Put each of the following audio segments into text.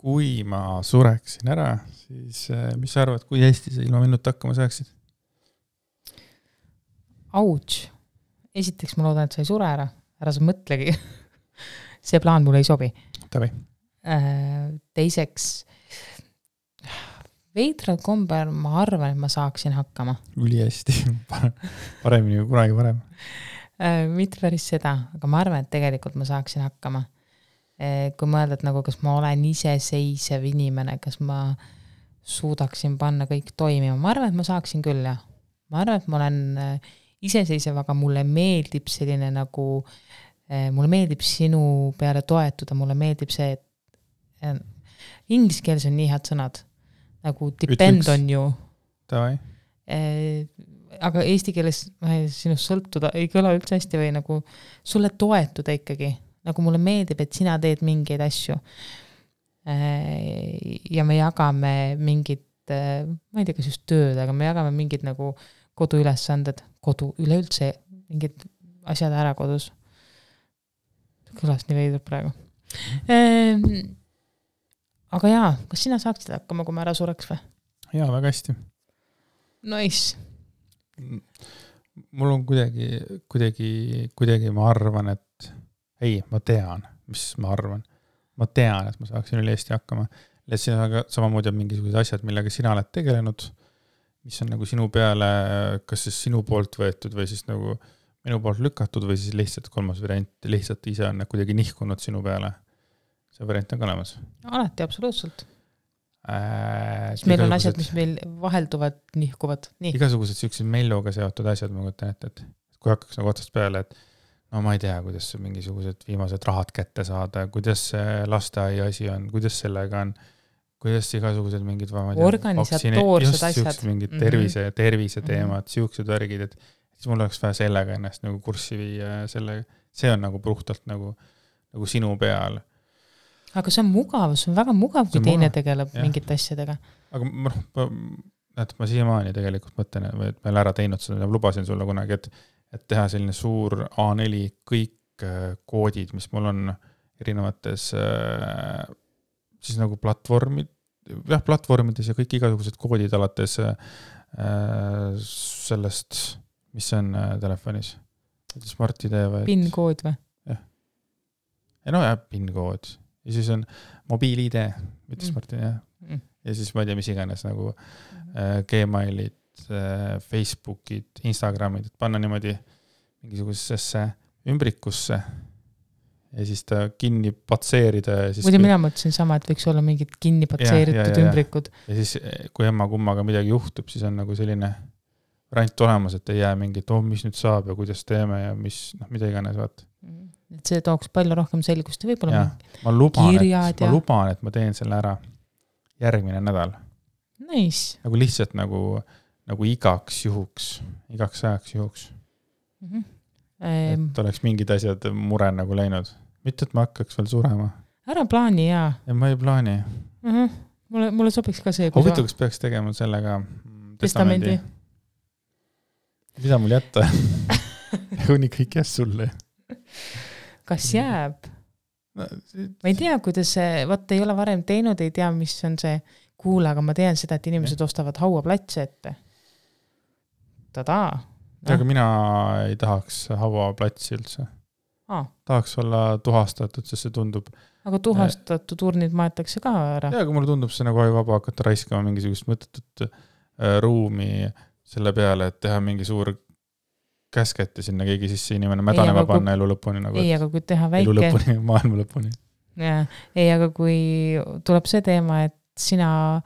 kui ma sureksin ära, siis mis sa arvad, kui hästi sa ilma minuta hakkama saaksid? Ouch. Esiteks ma loodan, et sa ei sure ära. Ära sa mõtlegi. See plaan mulle ei sobi. Tavi. Teiseks, veidral kombel ma arvan, et ma saaksin hakkama. Üli hästi. Paremini kui kunagi varem. Mitte päris seda, aga ma arvan, et tegelikult ma saaksin hakkama. Kui mõelda, et nagu kas ma olen iseseisev inimene, kas ma suudaksin panna kõik toimima. Ma arvan, et ma saaksin küll, jah. Ma arvan, et ma olen iseseisev, aga mulle meeldib selline nagu, mulle meeldib sinu peale toetuda, mulle meeldib see, et inglise keeles on nii head sõnad, nagu depend on you. Tavai. Aga eesti keeles sinust sõltuda ei kõla üldse hästi või nagu sulle toetuda ikkagi. Nagu mulle meeldib, et sina teed mingeid asju. Ja me jagame mingid, ma ei tea, kas just tööd, aga me jagame mingid nagu koduülesanded, üleüldse mingid asjad ära kodus. Kõlas nii veidub praegu. Aga jaa, kas sina saaksid hakkama, kui ma ära sureks või? Jaa, väga hästi. Nice. Mul on kuidagi ma arvan, et ei, ma tean, mis ma arvan. Ma tean, et ma saaksin üle Eesti hakkama. Ja siin on samamoodi on mingisugused asjad, millega sina oled tegelenud, mis on nagu sinu peale, kas siis sinu poolt võetud või siis nagu minu poolt lükatud või siis lihtsalt kolmas variant, lihtsalt ise on kuidagi nihkunud sinu peale. See variant on ka olemas. Alati, absoluutselt. Meil on asjad, mis meil vahelduvad, nihkuvad. Nii. Igasugused sellised melluga seotud asjad, ma kujutan ette, et kui hakkaks nagu otsast peale, et no ma ei tea, kuidas mingisugused viimased rahad kätte saada, kuidas lasteaia asi on, kuidas sellega on, kuidas igasugused mingid organisatoorsed asjad. Mingid tervise teemad, siuksed värgid, et siis mul oleks vaja sellega ennast nagu kurssi viia sellega. See on nagu puhtalt nagu sinu peal. Aga see on mugav, see on väga mugav, kui teine tegeleb mingite asjadega. Aga ma siiamaani tegelikult mõtlen, et ma olen ära teinud seda, lubasin sulle kunagi, et teha selline suur A4 kõik koodid, mis mul on erinevates siis nagu platvormides ja kõik igasugused koodid alates sellest, mis on telefonis. Smart ID või? PIN-kood või? Jah. Ja no jah, PIN-kood. Ja siis on mobiil-ID, mitte Smart ID. Ja siis ma ei tea, mis iganes nagu Gmailid, Facebookid, Instagramid, et panna niimoodi mingisugusesse ümbrikusse ja siis ta kinni patseerida. Muidu mina mõtlesin sama, et võiks olla mingid kinni patseeritud ümbrikud. Ja siis, kui emma kummaga midagi juhtub, siis on nagu selline variant olemas, et ei jää mingit, mis nüüd saab ja kuidas teeme ja mida iganes vaat. Et see tooks palju rohkem selgust ja võib-olla ma luban, et ma teen selle ära järgmine nädal. Nice. Nagu lihtsalt nagu igaks ajaks juhuks. Et oleks mingid asjad mure nagu läinud. Mitte, et ma hakkaks veel surema. Ära plaani, jaa. Ja ma ei plaani. Mulle sobiks ka see. Huvitav, kas peaks tegema sellega testamendi? Mida mul jätta? Kuni kõik jääs sulle. Kas jääb? Ma ei tea, kuidas see, ei ole varem teinud, ei tea, mis on see kuule, aga ma tean seda, et inimesed ostavad hauaplatse ette. Tadaa. Aga mina ei tahaks hauaplatsi üldse. Tahaks olla tuhastatud, sest see tundub. Aga tuhastatud urnid maetakse ka ära. Ja, aga mulle tundub see nagu vaba hakata raiskama mingisugust mõttetut ruumi selle peale, et teha mingi suur käsketi sinna keegi sisse inimene mädanema panna elu lõpuni. Nagu, ei, aga kui teha väike... Elu lõpuni, maailma lõpuni. Ja, ei, aga kui tuleb see teema, et sina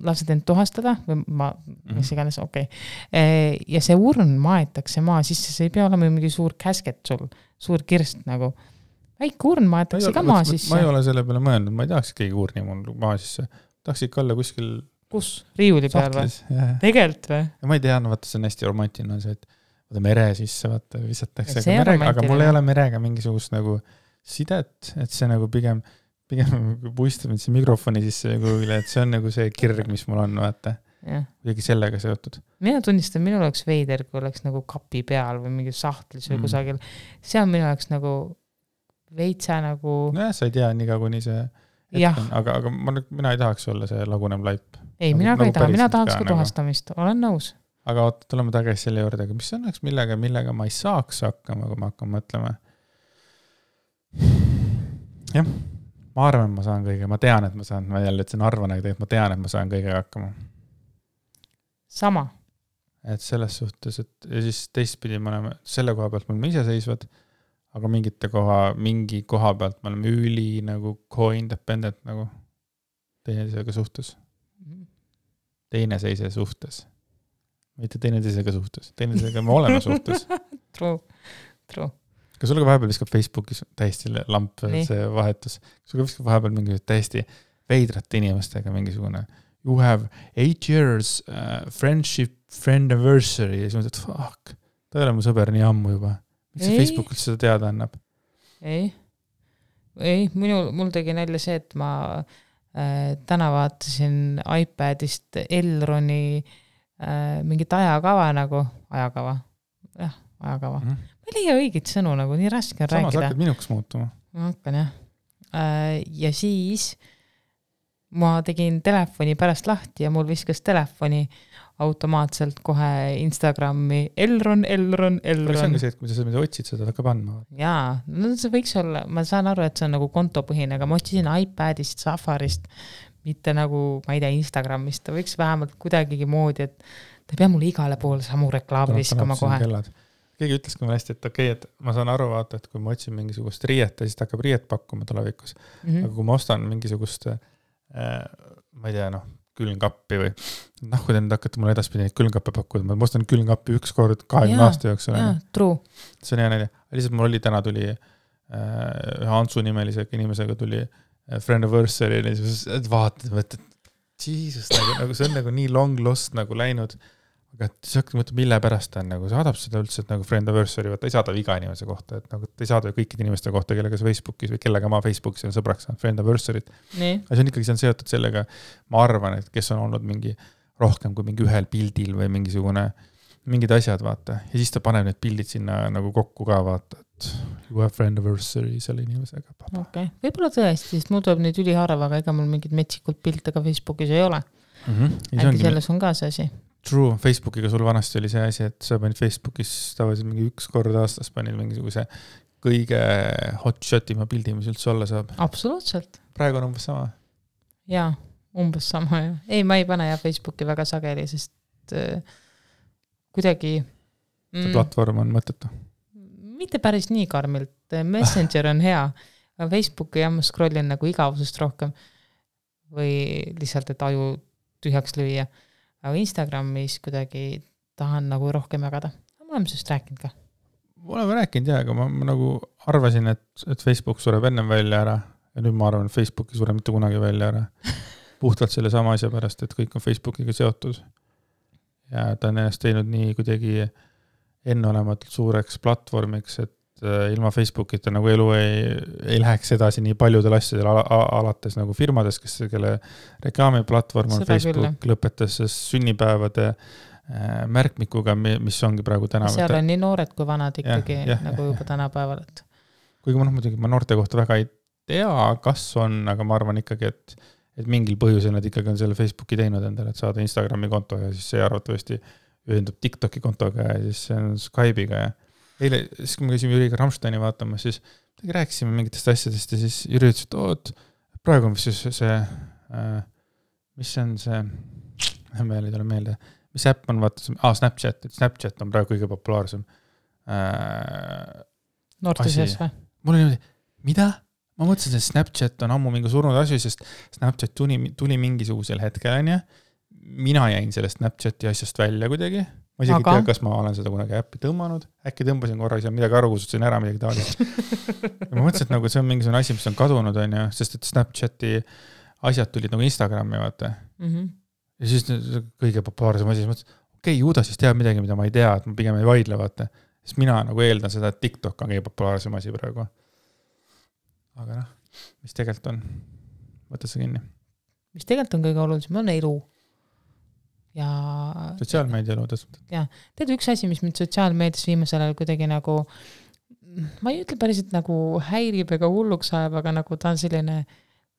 lased end tuhastada, või mis iganes, okei. Ja see urn maetakse maa sisse, see ei pea olema mingi suur käsket sul, suur kirst nagu. Väike urn maetakse ka maa sisse. Ma ei ole selle peale mõelnud, ma ei tahaks keegi urni mul maa sisse. Tahaks ikka olla kuskil... Kus? Riiuli peal või? Tegelt või? Ja ma ei tea, vaata, see on hästi romantiline, see, et mere sisse, vaata, visatakse merega, aga mul ei ole merega mingisugust nagu sidet, et see nagu pigem puistab see mikrofoni sisse kuhugile, et see on nagu see kirg, mis mul on, vaata. Kuidagi sellega seotud. Mina tunnistan, minul oleks veider, kui oleks nagu kapi peal või mingi sahtlis või kusagil. See on minu oleks nagu veitsa nagu... Nojah, sa ei tea, nii kuni see... aga mina ei tahaks olla see lagunev laip. Ei, mina ka ei taha, mina tahaks ka tuhastamist, olen nõus. Aga tuleme tagasi selle juurde, aga mis õnneks millega ma ei saaks hakkama, kui ma hakkan mõtlema. Jah, ma arvan, ma saan kõige, ma tean, et ma saan, ma jälle ütlesin arvan, aga tegelikult ma tean, et ma saan kõige hakkama. Sama. Et selles suhtes, et ja siis teistpidi me oleme, selle koha pealt me oleme iseseisvad, aga mingi koha pealt me oleme üli nagu co-independent nagu teineteisega suhtes. Teineseise suhtes. Mitte teineteisega suhtes. Teineteisega me oleme suhtes. True. Kas sul ka vahepeal viskab Facebookis täiesti lamp see vahetus? Kas sul ka viskab vahepeal mingi täiesti veidrate inimestega mingisugune you have 8 years friend anniversary ja siis mõtled, fuck, ta ei ole mu sõber nii ammu juba. Miks see Facebookil seda teada annab? Ei, mul tegi nälja see, et ma täna vaatasin iPadist Elroni mingit ajakava. Jah, ajakava. Ma ei leia õigit sõnu, nagu nii raske on rääkida. Samas hakkad minuks muutuma. Ma hakkan, jah. Ja siis ma tegin telefoni pärast lahti ja mul viskas telefoni automaatselt kohe Instagrami Elron. See on ka see, et kui sa seda otsid, seda hakkab andma. Jaa, no see võiks olla, ma saan aru, et see on nagu kontopõhine, aga ma otsisin iPadist, Safarist, mitte nagu, ma ei tea, Instagramist, ta võiks vähemalt kuidagigi moodi, et ta ei pea mulle igale poole samu reklaami viskama kohe. Keegi ütles ka mulle hästi, et okei, et ma saan aru vaata, et kui ma otsin mingisugust riiet, siis ta hakkab riiet pakkuma tulevikus. Aga kui ma ostan mingisugust, ma ei tea, külmkappi või kui te nüüd hakkate mulle edaspidi neid külmkappe pakkuda, ma ostan külmkappi üks kord 20 aasta jooksul. True. See on hea näide. Lihtsalt mul täna tuli Hansu nimelise inimesega tuli friendiversary ja siis vaatad, et Jesus, nagu see on nagu nii long lost nagu läinud. Aga siis hakkad mõtlema, mille pärast ta on, nagu saadab seda üldse, et nagu friendiversary, vaata ei saada iga inimese kohta, et nagu ta ei saada kõikide inimeste kohta, kellega sa Facebookis või kellega ma Facebookis on sõbraks saanud friendiversary't. Aga see on ikkagi seotud sellega, ma arvan, et kes on olnud mingi rohkem kui mingi ühel pildil või mingid asjad, vaata. Ja siis ta paneb need pildid sinna nagu kokku ka, vaata, et you have friendiversary selle inimesega. Okay. Võib-olla tõesti, sest mul tuleb neid üliharva, aga ega mul mingid metsikult pilte ka Facebookis ei ole. Äkki selles on ka see asi. True, Facebookiga sul vanasti oli see asi, et sa panid Facebookis tavaliselt mingi üks kord aastas panid mingisuguse kõige hotshot-ima pildi, mis üldse olla saab. Absoluutselt. Praegu on umbes sama? Jaa, umbes sama. Ja. Ei, ma ei pane Facebooki väga sageli, sest kuidagi... See platvorm on mõttetu? Mitte päris nii karmilt. Messenger on hea, aga Facebooki ma scrollin nagu igavusest rohkem või lihtsalt, et aju tühjaks lüüa. Aga Instagramis kuidagi tahan nagu rohkem jagada. Ma olen sellest rääkinud ka. Ma olen rääkinud, jah, aga ma nagu arvasin, et Facebook sureb ennem välja ära ja nüüd ma arvan, et Facebooki sureb mitte kunagi välja ära. Puhtalt selle sama asja pärast, et kõik on Facebookiga seotud. Ja ta on ennast teinud nii kuidagi enneolematult suureks platvormiks, et ilma Facebookita nagu elu ei läheks edasi nii paljudel asjadel alates nagu firmades, kelle reklaamiplatvorm on Facebook, lõpetas sünnipäevade märkmikuga, mis ongi praegu tänapäeval. Seal on nii noored kui vanad ikkagi nagu juba tänapäeval. Kuigi ma noorte kohta väga ei tea, kas on, aga ma arvan ikkagi, et mingil põhjusel nad ikkagi on selle Facebooki teinud endale, et saada Instagrami konto ja siis see arvatavasti ühendub TikToki kontoga ja siis see on Skype'iga ja eile, siis kui me käisime Jüriga Rammsteini vaatama, siis rääkisime mingitest asjadest ja siis Jüri ütles, et praegu on see, mis on see, meil ei tule meelde, mis äpp on, Snapchat, et Snapchat on praegu kõige populaarsem. Noorte seas või? Mul oli niimoodi, mida? Ma mõtlesin, et Snapchat on ammu mingi surnud asju, sest Snapchat tuli mingisugusel hetkel, mina jäin sellest Snapchati asjast välja kuidagi. Ma isegi tea, kas ma olen seda kunagi äppi tõmmanud. Äkki tõmbasin korra, siis midagi aru kusutasin ära, midagi taolist. Ja ma mõtlesin, et nagu see on mingisugune asi, mis on kadunud, sest et Snapchati asjad tulid nagu Instagrami, vaata. Ja siis kõige populaarsem asi, mõtlesin, okei, ju ta siis teab midagi, mida ma ei tea, et ma pigem ei vaidle, vaata. Sest mina nagu eeldan seda, et TikTok on kõige populaarsem asi praegu. Aga mis tegelikult on? Võta see kinni. Mis tegelikult on kõige olulisem, on elu. Ja sotsiaalmeedia elu ja tead üks asi, mis mind sotsiaalmeedias viimasel ajal kuidagi nagu ma ei ütle päriselt nagu häirib ega hulluks ajab, aga nagu ta on selline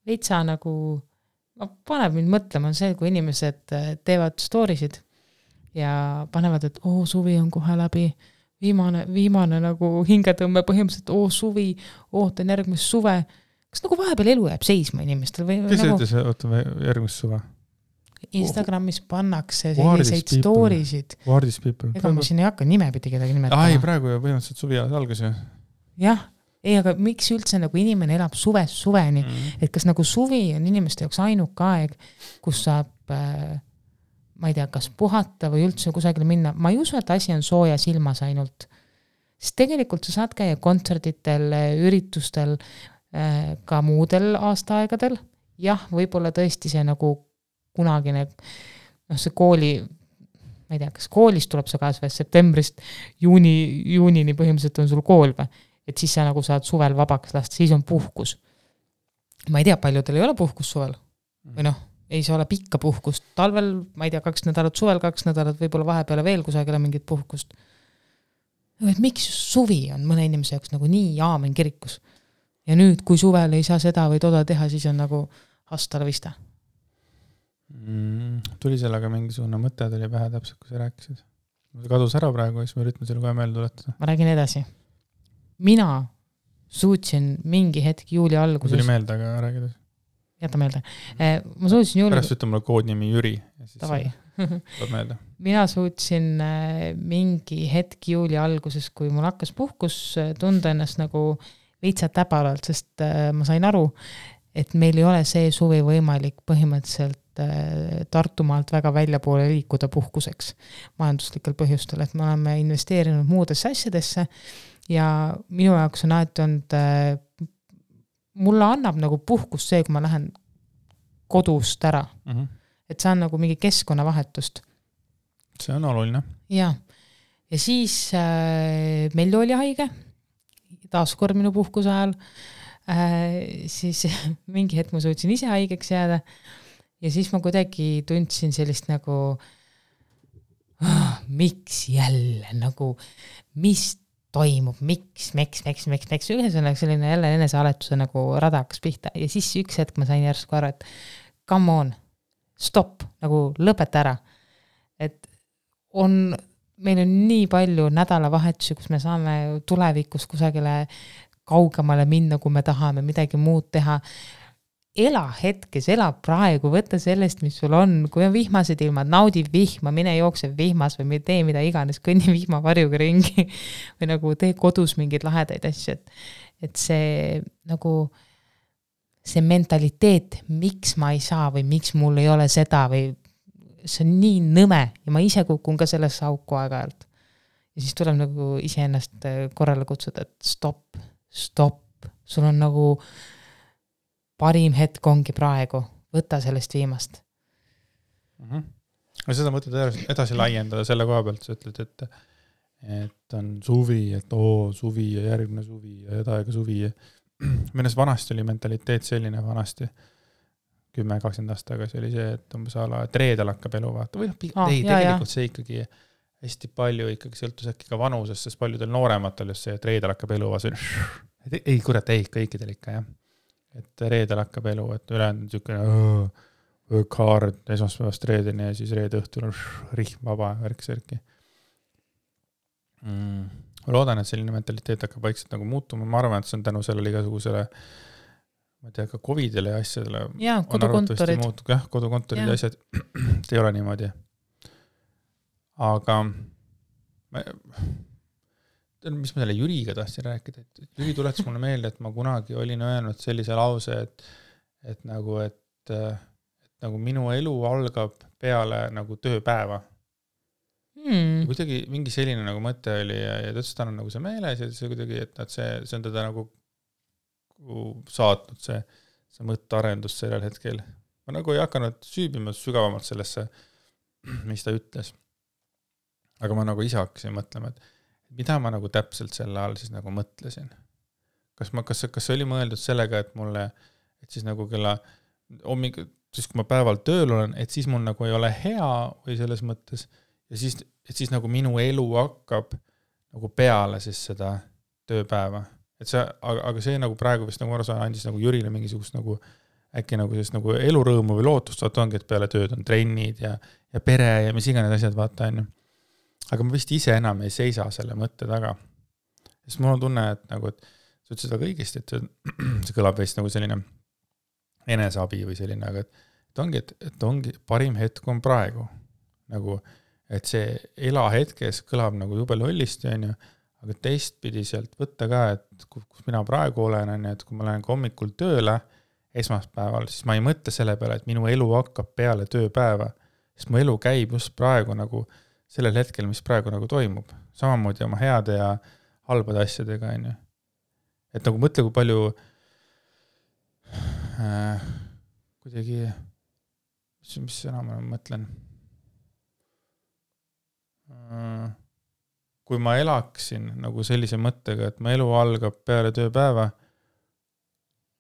veitsa nagu, paneb mind mõtlema see, kui inimesed teevad storysid ja panevad, et suvi on kohe läbi, viimane nagu hingetõmme põhimõtteliselt, suvi, ootan järgmist suve. Kas nagu vahepeal elu jääb seisma inimestel? Kes nagu... ütles, ootame järgmist suve? Instagramis pannakse selliseid storisid. Wardis people. Ega ma siin ei hakka nimepidi kedagi nimetama. Ai, praegu põhimõtteliselt suvi algas ju. Jah, aga miks üldse nagu inimene elab suvest suveni? Et kas nagu suvi on inimeste jaoks ainuke aeg, kus saab, ma ei tea, kas puhata või üldse kusagile minna. Ma ei usu, et asi on soojas ilmas ainult. Sest tegelikult sa saad käia kontserditel, üritustel, ka muudel aastaaegadel. Jah, võib-olla tõesti see nagu kunagine, see kooli, ma ei tea, kas koolis tuleb see kaas või septembrist juunini põhimõtteliselt on sul kool või, et siis sa nagu saad suvel vabaks lasta, siis on puhkus. Ma ei tea, paljudel ei ole puhkus suvel või ei saa ole pikka puhkust, talvel, ma ei tea, 2 nädalat suvel, 2 nädalat võib-olla vahepeale veel kusagile mingit puhkust. Et miks suvi on mõne inimese jaoks nagu nii aamen kirikus ja nüüd, kui suvel ei saa seda või toda teha, siis on nagu hasta la vista. Tuli sellega mingisugune mõte tuli pähe täpselt, kui sa rääkisid. Kadus ära praegu, siis ma üritan selle kohe meelde tuletada. Ma räägin edasi. Mina suutsin mingi hetk juuli alguses... Tuli meelde, aga räägides. Jäta meelde. Ma suutsin juuli... Pärast ütleme koodnimi Jüri. Tavai. Meelde. Mina suutsin mingi hetk juuli alguses, kui mul hakkas puhkus tunda ennast nagu veitsa täbaralt, sest ma sain aru, et meil ei ole see suvi võimalik põhimõtteliselt Tartumaalt väga välja poole liikuda puhkuseks majanduslikel põhjustel, et me oleme investeerinud muudesse asjadesse ja minu jaoks on alati olnud, mulle annab nagu puhkus see, kui ma lähen kodust ära. Et see on nagu mingi keskkonnavahetust. See on oluline. Ja siis meil oli haige, taaskord minu puhkuse ajal, siis mingi hetk ma suutsin ise haigeks jääda ja siis ma kuidagi tundsin sellist nagu miks jälle, nagu mis toimub, miks, ühesõnaga selline jälle enesealetuse nagu rada hakkas pihta ja siis üks hetk ma sain järsku aru, et come on, stop, nagu lõpeta ära, et meil on nii palju nädalavahetusi, kus me saame tulevikus kusagile kaugemale minna, kui me tahame midagi muud teha. Ela hetkes, ela praegu, võtta sellest, mis sul on, kui on vihmased ilmad, naudi vihma, mine jookse vihmas või tee mida iganes, kõnni vihmavarjuga ringi või nagu tee kodus mingeid lahedaid asju, et see nagu see mentaliteet, miks ma ei saa või miks mul ei ole seda või see on nii nõme ja ma ise kukun ka sellesse auku aeg-ajalt. Ja siis tuleb nagu iseennast korrale kutsuda, et stop, sul on nagu parim hetk ongi praegu, võta sellest viimast. Seda mõtled edasi laiendada selle koha pealt, sa ütled, et on suvi, et suvi ja järgmine suvi ja edaega suvi. Minnes vanasti oli mentaliteet selline vanasti, 10-20 aastat tagasi oli see, et umbes ala, et reedel hakkab elu vaata. Või tegelikult see ikkagi hästi palju ikkagi sõltus äkki ka vanusest, sest paljudel noorematel just see, et reedel hakkab elu vaata. Ei, kurat, kõikidel ikka, jah. Et reedel hakkab elu, et ülejäänud niisugune kaard esmaspäevast reedeni ja siis reede õhtul on rihm vaba värk-särki. Ma loodan, et selline mentaliteet hakkab vaikselt nagu muutuma. Ma arvan, et see on tänu sellele igasugusele, ma ei tea, ka COVIDile ja asjadele. Jaa, kodukontorid. Jah, kodukontorid ja asjad ei ole niimoodi. Aga mis ma selle Jüriga tahtsin rääkida, et Jüri tuletas mulle meelde, et ma kunagi olin öelnud sellise lause, et nagu minu elu algab peale nagu tööpäeva. Kuidagi mingi selline nagu mõte oli ja tõstan on nagu see meeles ja see kuidagi, et see on teda nagu saatnud see mõttearendus sellel hetkel. Ma nagu ei hakanud süübima sügavamalt sellesse, mis ta ütles. Aga ma nagu ise hakkasin mõtlema, et mida ma nagu täpselt selle all siis nagu mõtlesin. Kas oli mõeldud sellega, et mulle, et siis nagu kella siis kui ma päeval tööl olen, et siis mul nagu ei ole hea või selles mõttes ja siis nagu minu elu hakkab nagu peale siis seda tööpäeva. Et see, aga see nagu praegu vist nagu andis nagu Jürile mingisugust nagu äkki nagu sellist nagu elurõõmu või lootust, vaata ongi, et peale tööd on trennid ja pere ja mis iganes asjad, vaata on ju. Aga ma vist ise enam ei seisa selle mõtte taga. Sest mul on tunne, et nagu, et sa ütlesid väga õigesti, et see kõlab veist nagu selline eneseabi või selline, aga et ongi parim hetk on praegu. Nagu, et see ela hetkes kõlab nagu jube lollisti, on ju, aga teistpidi sealt võtta ka, et kus mina praegu olen, on ju, et kui ma lähen hommikul tööle esmaspäeval, siis ma ei mõtle selle peale, et minu elu hakkab peale tööpäeva, sest mu elu käib just praegu nagu sellel hetkel, mis praegu nagu toimub. Samamoodi oma heade ja halbade asjadega, on ju. Et nagu mõtle, kui palju kuidagi, mis sõna ma mõtlen, kui ma elaksin nagu sellise mõttega, et ma elu algab peale tööpäeva,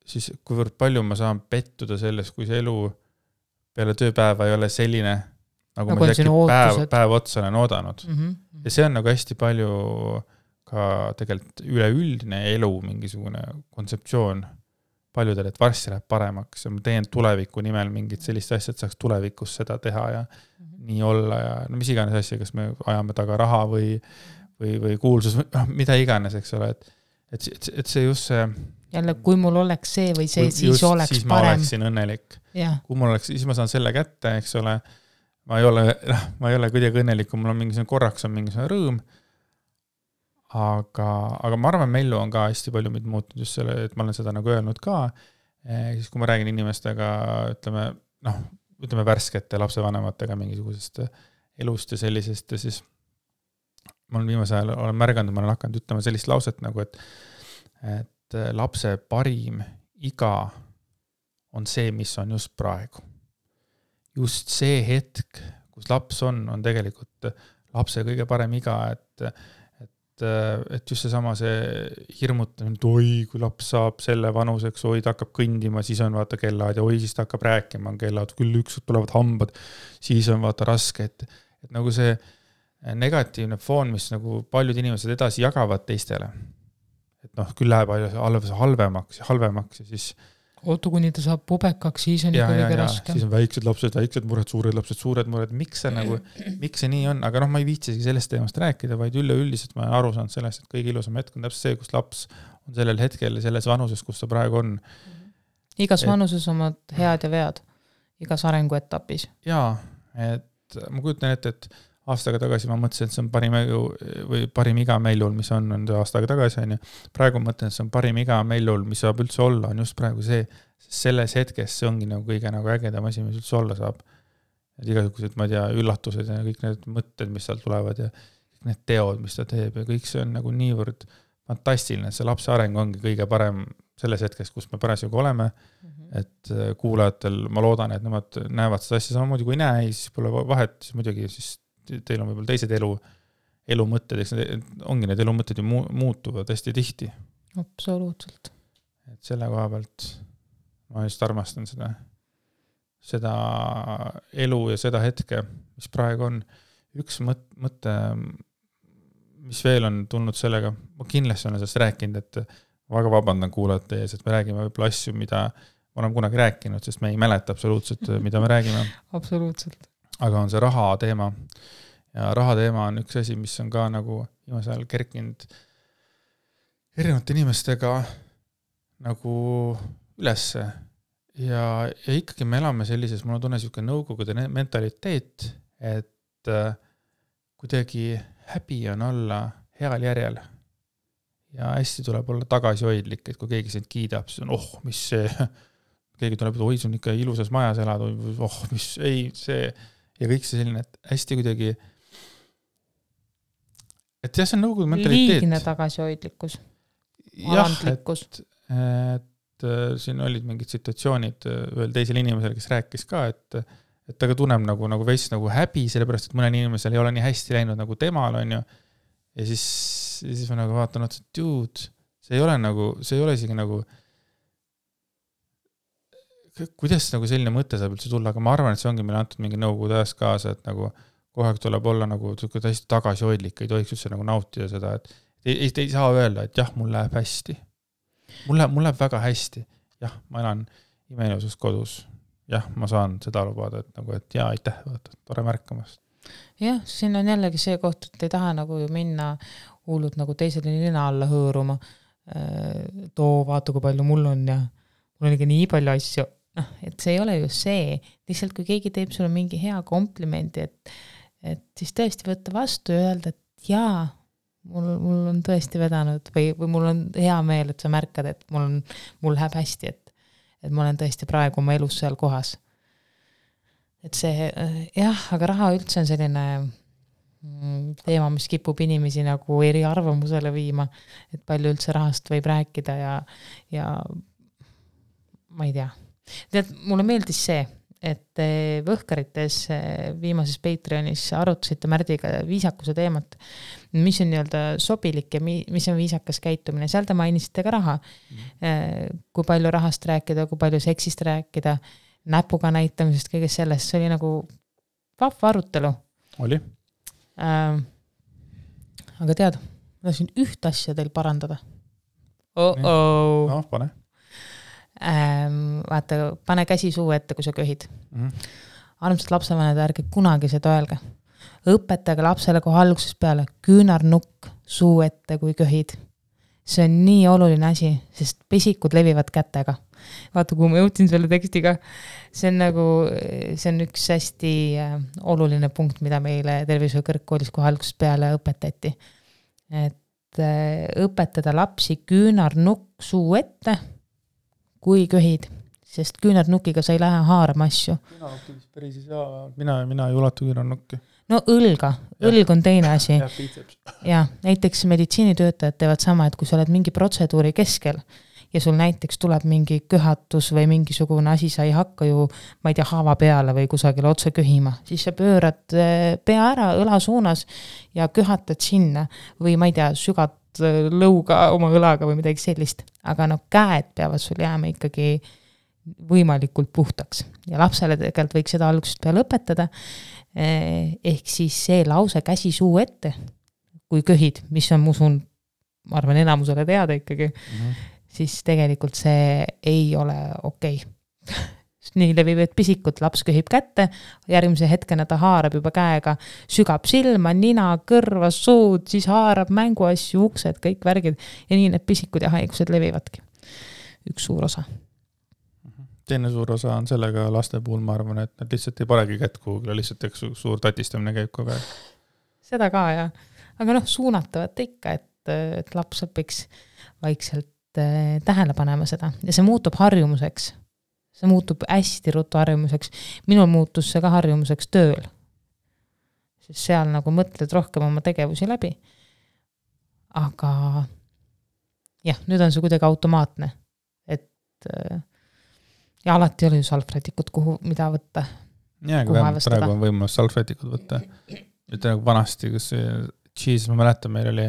siis kuivõrd palju ma saan pettuda selles, kui see elu peale tööpäeva ei ole selline, nagu ma päev otsa olen oodanud. Ja see on nagu hästi palju ka tegelikult üleüldine elu mingisugune kontseptsioon paljudel, et varsti läheb paremaks ja ma teen tuleviku nimel mingit sellist asja, et saaks tulevikus seda teha ja nii olla ja no mis iganes asja, kas me ajame taga raha või kuulsus, mida iganes, eks ole, et see just see jälle, kui mul oleks see või see, siis oleks siis parem. Ma oleksin õnnelik. Ja. Kui mul oleks, siis ma saan selle kätte, eks ole, ma ei ole kuidagi õnnelik, kui mul on mingisugune korraks on mingisugune rõõm, aga ma arvan, Mellu on ka hästi palju mind muutnud just selle, et ma olen seda nagu öelnud ka, siis kui ma räägin inimestega, ütleme värskete lapsevanematega mingisugusest elust ja sellisest, ja siis ma olen viimase ajal olen märganud, ma olen hakanud ütlema sellist lauset nagu, et lapse parim iga on see, mis on just praegu. Just see hetk, kus laps on tegelikult lapse kõige parem iga, et just seesama see hirmutamine, et oi, kui laps saab selle vanuseks, oi, ta hakkab kõndima, siis on vaata kellaad ja oi, siis ta hakkab rääkima, kellaad, küll ükskord tulevad hambad, siis on vaata raske, et nagu see negatiivne foon, mis nagu paljud inimesed edasi jagavad teistele, et küll läheb halvemaks ja siis ootu, kuni ta saab pubekaks, siis on ikka kõige raskem. Siis on väiksed lapsed, väiksed mured, suured lapsed, suured mured. Miks see nii on? Aga ma ei viitsigi sellest teemast rääkida, vaid üleüldiselt ma olen aru saanud sellest, et kõige ilusam hetk on täpselt see, kus laps on sellel hetkel selles vanuses, kus ta praegu on. Igas vanuses omad head ja vead. Igas arenguetapis. Jaa, et ma kujutan et aastaga tagasi ma mõtlesin, et see on parim iga Mellul, mis on aastaga tagasi. On ju. Praegu mõtlen, et see on parim iga Mellul, mis saab üldse olla, on just praegu see, selles hetkes see ongi nagu kõige nagu ägedam asi, mis üldse olla saab. Et igasugused, ma ei tea, üllatused ja kõik need mõtted, mis seal tulevad ja kõik need teod, mis ta teeb ja kõik see on nagu niivõrd fantastiline, et see lapse areng ongi kõige parem selles hetkes, kus me parasjagu oleme, et kuulajatel ma loodan, et nemad näevad seda asja samamoodi kui näe, siis pole vahet, siis muidugi siis teil on võib-olla teised elumõtted, eks ongi need elumõtted ju muutuvad hästi tihti. Absoluutselt. Et selle koha pealt ma just armastan seda elu ja seda hetke, mis praegu on. Üks mõte, mis veel on tulnud sellega, ma kindlasti olen sellest rääkinud, et ma väga vabandan kuulajate ees, et me räägime võib-olla asju, mida ma olen kunagi rääkinud, sest me ei mäleta absoluutselt, mida me räägime. Absoluutselt. Aga on see raha teema ja raha teema on üks asi, mis on ka nagu viimasel ajal kerkinud erinevate inimestega nagu ülesse ja ikkagi me elame sellises, mul on tunne niisugune nõukogude mentaliteet, et kuidagi häbi on olla heal järjel ja hästi tuleb olla tagasihoidlik, et kui keegi sind kiidab, siis on mis see, keegi tuleb, oi, see on ikka ilusas majas elad, mis ei, see ja kõik see selline, et hästi kuidagi et jah, see on nõukogude mentaliteet. Liigne tagasihoidlikkus. Alandlikkus. Et siin olid mingid situatsioonid veel teisel inimesel, kes rääkis ka, et ta ka tunneb nagu veits nagu häbi, sellepärast, et mõnel inimesel ei ole nii hästi läinud nagu temal, on ju. Ja siis ma nagu vaatan, et dude, see ei ole isegi nagu kuidas nagu selline mõte saab üldse tulla, aga ma arvan, et see ongi meile antud mingi nõukogude ajast kaasa, et nagu kogu aeg tuleb olla nagu hästi tagasihoidlik, ei tohiks üldse nagu nautida seda, et ei saa öelda, et jah, mul läheb hästi. Mul läheb väga hästi. Jah, ma elan imeilusas kodus. Jah, ma saan seda lubada, et nagu, et jaa, aitäh, vaata, tore märkamast. Jah, siin on jällegi see koht, et ei taha nagu ju minna hullud nagu teisele nina alla hõõruma. Too, vaata, kui palju mul on ja mul on ikka nii palju asju. Et see ei ole ju see. Lihtsalt kui keegi teeb sulle mingi hea komplimendi, et siis tõesti võtta vastu ja öelda, et jaa, mul on tõesti vedanud või mul on hea meel, et sa märkad, et mul läheb hästi, et ma olen tõesti praegu oma elus seal kohas. Et see, jah, aga raha üldse on selline teema, mis kipub inimesi nagu eri arvamusele viima, et palju üldse rahast võib rääkida ja ma ei tea. Tead, mulle meeldis see, et Võhkarites viimases Patreonis arutasite Märdiga viisakuse teemat, mis on nii-öelda sobilik ja mis on viisakas käitumine. Seal te mainisite ka raha, kui palju rahast rääkida, kui palju seksist rääkida, näpuga näitamisest, kõigest sellest. See oli nagu vahva arutelu. Oli. Aga tead, ma tahtsin üht asja teil parandada. No, pane. Vaata, pane käsi suu ette, kui sa köhid. Armsad lapsevanemad, ärge kunagi seda öelge. Õpetage lapsele kohe algusest peale küünarnukk suu ette, kui köhid. See on nii oluline asi, sest pesikud levivad kätega. Vaata, kui ma jõudsin selle tekstiga, see on üks hästi oluline punkt, mida meile tervishoiu kõrgkoolis kohe algusest peale õpetati. Et õpetada lapsi küünarnukk suu ette, kui köhid, sest küünarnukiga sa ei lähe haarama asju. Küünarnukki päris ei saa, mina ei ulatu küünarnukki. No õlg on teine asi. Ja näiteks meditsiinitöötajad teevad sama, et kui sa oled mingi protseduuri keskel ja sul näiteks tuleb mingi köhatus või mingisugune asi, sa ei hakka ju, ma ei tea, haava peale või kusagil otse köhima, siis sa pöörad pea ära õla suunas ja köhatad sinna või ma ei tea, sügad lõuga oma õlaga või midagi sellist, aga käed peavad sul jääma ikkagi võimalikult puhtaks ja lapsele tegelikult võiks seda algusest peale õpetada, ehk siis see lause käsi suu ette, kui köhid, mis on musun, ma arvan enamusele teada ikkagi, siis tegelikult see ei ole okei. Nii levivad pisikud, laps köhib kätte, järgmise hetkena ta haarab juba käega, sügab silma, nina, kõrva, suud, siis haarab mänguasju, uksed, kõik värgid ja nii need pisikud ja haigused levivadki. Üks suur osa. Teine suur osa on sellega laste puhul, ma arvan, et nad lihtsalt ei paregi kätt kuhugile, lihtsalt suur tatistamine käib kogu aeg. Seda ka, jah. Aga suunatavat ikka, et laps õpiks vaikselt tähele panema seda ja see muutub harjumuseks. See muutub hästi ruttu harjumuseks. Minul muutus see ka harjumuseks tööl. Sest seal nagu mõtled rohkem oma tegevusi läbi. Aga jah, nüüd on see kuidagi automaatne. Et ja alati oli ju salvrätikut, mida võtta. Ja, kui praegu on võimalus salvrätikut võtta. Nüüd nagu vanasti, kus ma mäletan, meil oli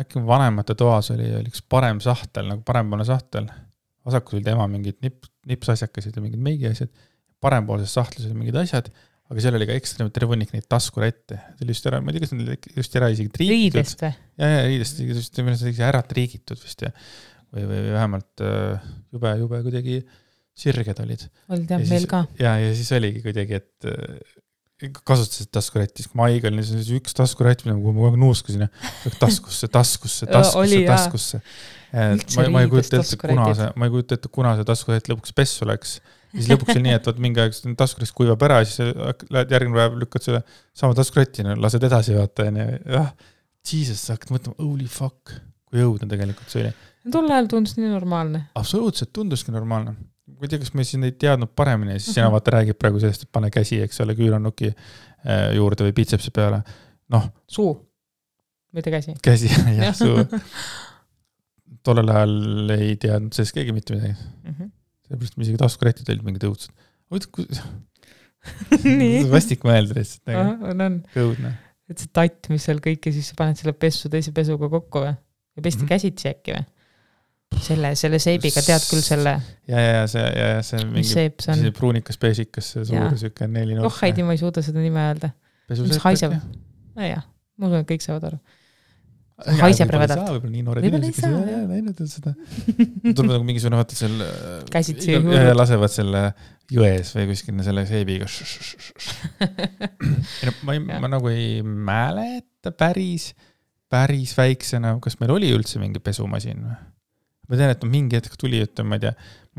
äkki vanemate toas oli üks parem sahtel, nagu parempoolne sahtel. Vasakul oli tema mingid nipsasjakasid ja mingid meigi asjad. Parempoolses sahtlis oli mingid asjad, aga seal oli ka ekstra tervunik neid taskurette. See oli just ära, ma ei tea, kas need just ära isegi triigitud. Riidest või? Ja, riidest, just ära triigitud vist või vähemalt jube kuidagi sirged olid. Olid jah, meil ka. Ja siis oligi kuidagi, et kasutasid taskurättis. Kui ma haigal, siis üks taskurätt, mida ma kogu nuuskasin, taskusse. Ma ei kujuta ette, kuna see taskurätt lõpuks pessu läks. Siis lõpuks oli nii, et mingi aeg taskurätt kuivab ära, siis lähed järgmine päev lükkad selle sama taskurättina, lased edasi vaata. Jesus, sa hakkad mõtlema, holy fuck, kui õudne tegelikult see oli. Tol ajal tundus nii normaalne. Absoluutselt tunduski normaalne. Kui tea, kas me siin ei teadnud paremini, siis sina vaata räägib praegu sellest, et pane käsi, eks ole, küünarnuki juurde või bitsepsi peale. Suu, mitte käsi. Käsi, jah, suu. Tollel ajal ei teadnud sellest keegi mitte midagi. Sellepärast me isegi taskurätid olid mingid õudsed. Vastik mõelda lihtsalt. On. Kõudne. Et see tatt, mis seal kõik ja siis sa paned selle pessu teise pesuga kokku või? Ja pesti käsitsi äkki või? Selle seibiga tead küll selle... Ja see mingi pruunikas pesikas, see suur süke 4 nurk. Haidi, ma ei suuda seda nime öelda. Mis haiseb? Jah, ma usun, et kõik saavad aru. haiseb rõvedalt. Võib-olla nii noored Võib-olla inimesed, ei kes ei ole näinud seda. Tuleb nagu mingisugune, vaata seal Käsitsi ja lasevad selle jões või kuskil selle seebiga. Ma nagu ei mäleta päris väiksena, kas meil oli üldse mingi pesumasin või? Ma tean, et mingi hetk tuli, ma ei tea,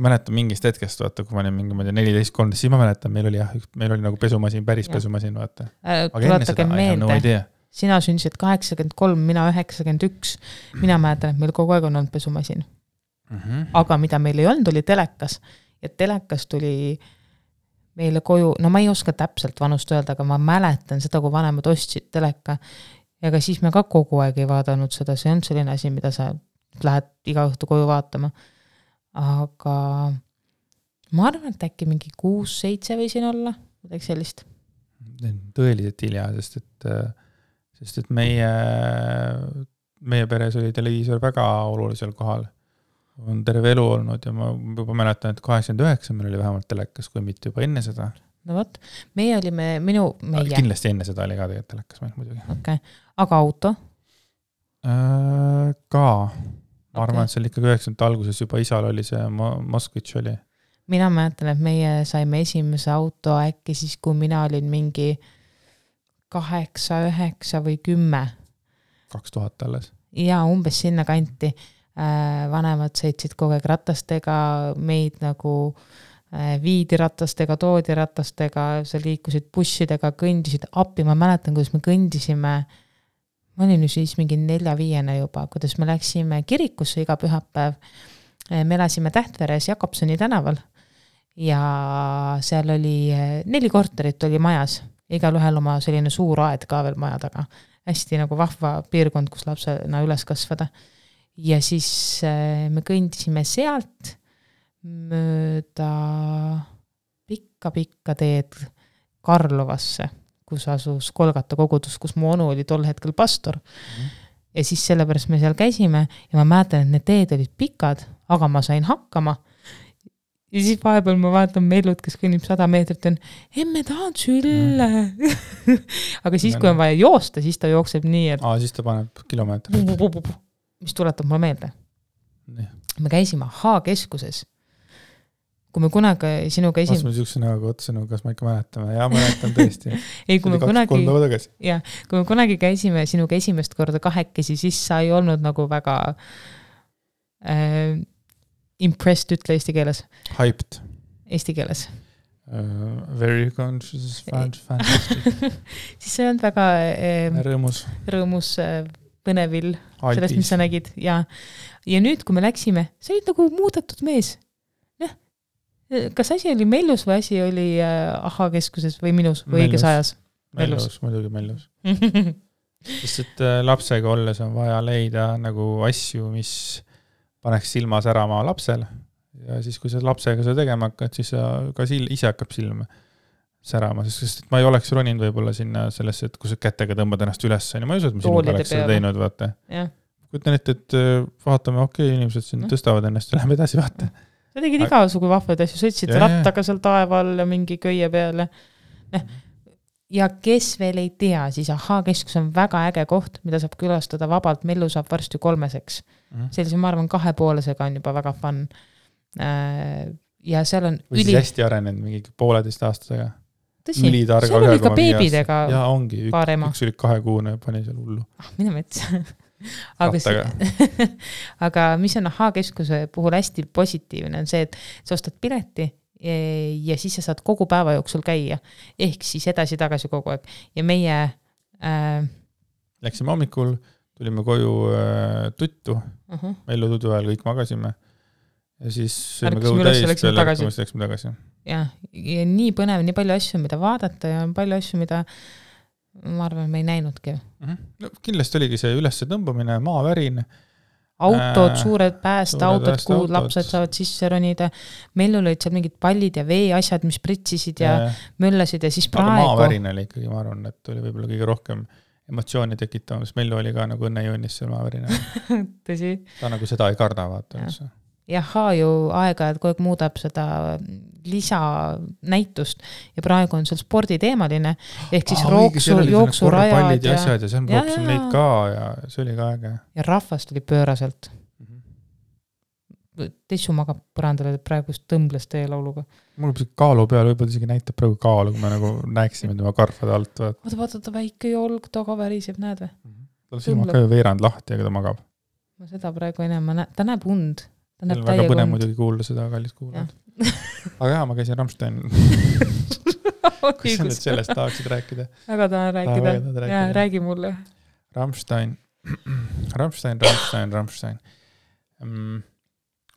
ma mäletan mingist hetkest, vaata, kui ma olin mingi 14-13, siis ma mäletan, meil oli nagu pesumasin, päris pesumasin, vaata. Tuletage meelde, sina sündisid 83, mina 91. Mina mäletan, et meil kogu aeg on olnud pesumasin. Aga mida meil ei olnud, oli telekas. Ja telekas tuli meile koju, no ma ei oska täpselt vanust öelda, aga ma mäletan seda, kui vanemad ostsid teleka. Ja ka siis me ka kogu aeg ei vaadanud seda, see on selline asi, mida sa lähed iga õhtu koju vaatama. Aga ma arvan, et äkki mingi 6-7 võisin olla, midagi sellist. Tõeliselt hilja, sest et meie peres oli televiisor väga olulisel kohal. On terve elu olnud ja ma juba mäletan, et 89 meil oli vähemalt telekas, kui mitte juba enne seda. No võt, meie olime, meie. Kindlasti enne seda oli ka tegelikult telekas meil muidugi. Okay. Aga auto? Ka. Ma arvan, et seal ikkagi 90 alguses juba isal oli see Moskvitš oli. Mina mäletan, et meie saime esimese auto äkki siis, kui mina olin mingi 8, 9 või 10. 2000 alles. Ja umbes sinna kanti. Vanemad sõitsid kogu aeg ratastega, meid nagu viidi ratastega, toodi ratastega, sa liikusid bussidega, kõndisid appi. Ma mäletan, kuidas me kõndisime. Ma olin siis mingi 4-5 juba, kuidas me läksime kirikusse iga pühapäev. Me elasime Tähtveres Jakobsoni tänaval ja seal oli 4 korterit oli majas. Igal ühel oma selline suur aed ka veel maja taga. Hästi nagu vahva piirkond, kus lapsena üles kasvada. Ja siis me kõndisime sealt mööda pikka teed Karlovasse, kus asus Kolgata kogudus, kus mu onu oli tol hetkel pastor. Ja siis sellepärast me seal käisime ja ma mäletan, et need teed olid pikad, aga ma sain hakkama. Ja siis vahepeal ma vaatan Mellut, kes kõnnib 100 meetrit, on, emme tahan sülle. Aga siis, kui on vaja joosta, siis ta jookseb nii, et siis ta paneb kilomeetrit. Mis tuletab mulle meelde. Me käisime H-keskuses. Kui me kunagi sinuga Ma sihukese nagu otsenu, kas ma ikka mäletame. Ja mäletan tõesti. Ei, kui me kunagi käisime sinuga esimest korda kahekesi, siis sa ei olnud nagu väga impressed, ütle eesti keeles. Hyped. Eesti keeles. Very conscious, fantastic. Siis sa ei olnud väga rõõmus põnevil sellest, mis sa nägid. Ja nüüd, kui me läksime, sa olid nagu muudetud mees. Kas asi oli Mellus või asi oli Aha-keskuses või minus või õiges ajas? Mellus, muidugi Mellus. Sest et lapsega olles on vaja leida nagu asju, mis paneks silma särama lapsel. Ja siis, kui sa lapsega seda tegema hakkad, siis ka ise hakkab silm särama. Sest ma ei oleks roninud võib-olla sinna sellesse, et kui sa kätega tõmbad ennast üles. Ma ei usu, et ma sinuga oleks seda teinud, vaata. Kutan ette, et vaatame, inimesed siin tõstavad ennast ja läheme edasi, vaata. Sa tegid igasugu vahvad asju, sõitsid rattaga seal taeval ja mingi köie peale. Ja kes veel ei tea, siis Aha-keskus on väga äge koht, mida saab külastada vabalt. Mellu saab varsti 3-seks. Sellise, ma arvan, 2,5-sega on juba väga fun. Ja seal on või siis hästi arenenud mingi 1,5 aastasega. Tõsi, seal oli ka beebidega ja ongi, üks oli 2-kuune ja pani seal hullu. Mine mets. Aga mis on Aha-keskuse puhul hästi positiivne on see, et sa ostad pileti ja siis sa saad kogu päeva jooksul käia. Ehk siis edasi-tagasi kogu aeg. Ja meie läksime hommikul, tulime koju tuttu. Mellu tudu ajal kõik magasime. Ja siis sõime kõhu täis peale, läksime tagasi. Ja nii põnev, nii palju asju, mida vaadata ja palju asju, mida ma arvan, me ei näinudki. No, kindlasti oligi see ülesse tõmbamine, maavärin. Autod, suured päästeautod, kuhu lapsed saavad sisse ronida. Meil olid seal mingid pallid ja veeasjad, mis pritsisid ja möllasid ja siis praegu. Aga maavärin oli ikkagi, ma arvan, et oli võib-olla kõige rohkem emotsiooni tekitama, sest Mellu oli ka nagu õnnejõunis seal maavärina. Tõsi. Ta nagu seda ei karda, vaata. Jaha ju aega, et kogu aeg muudab seda lisanäitust ja praegu on seal sporditeemaline ehk siis jooksurajad ja asjad ja seal rooksin neid ka ja see oli ka äge. Ja rahvast oli pööraselt. Tessu magab põrandale praegu tõmbles teie lauluga. Mul on kaalu peal, võib-olla isegi näitab praegu kaalu, kui me nagu näeksime tema karvade alt. Vaata väike jolg taga väriseb, näed või? Tal silmad ka ju veerand lahti, aga ta magab. Ma seda praegu enam, ta näeb und. Ta näeb väga põne muidugi kuulda seda, kallis kuulad. Aga jah, ma käisin Rammstein. Kas sa nüüd sellest tahaksid rääkida? Väga tahan rääkida. Ja, räägi mulle. Rammstein.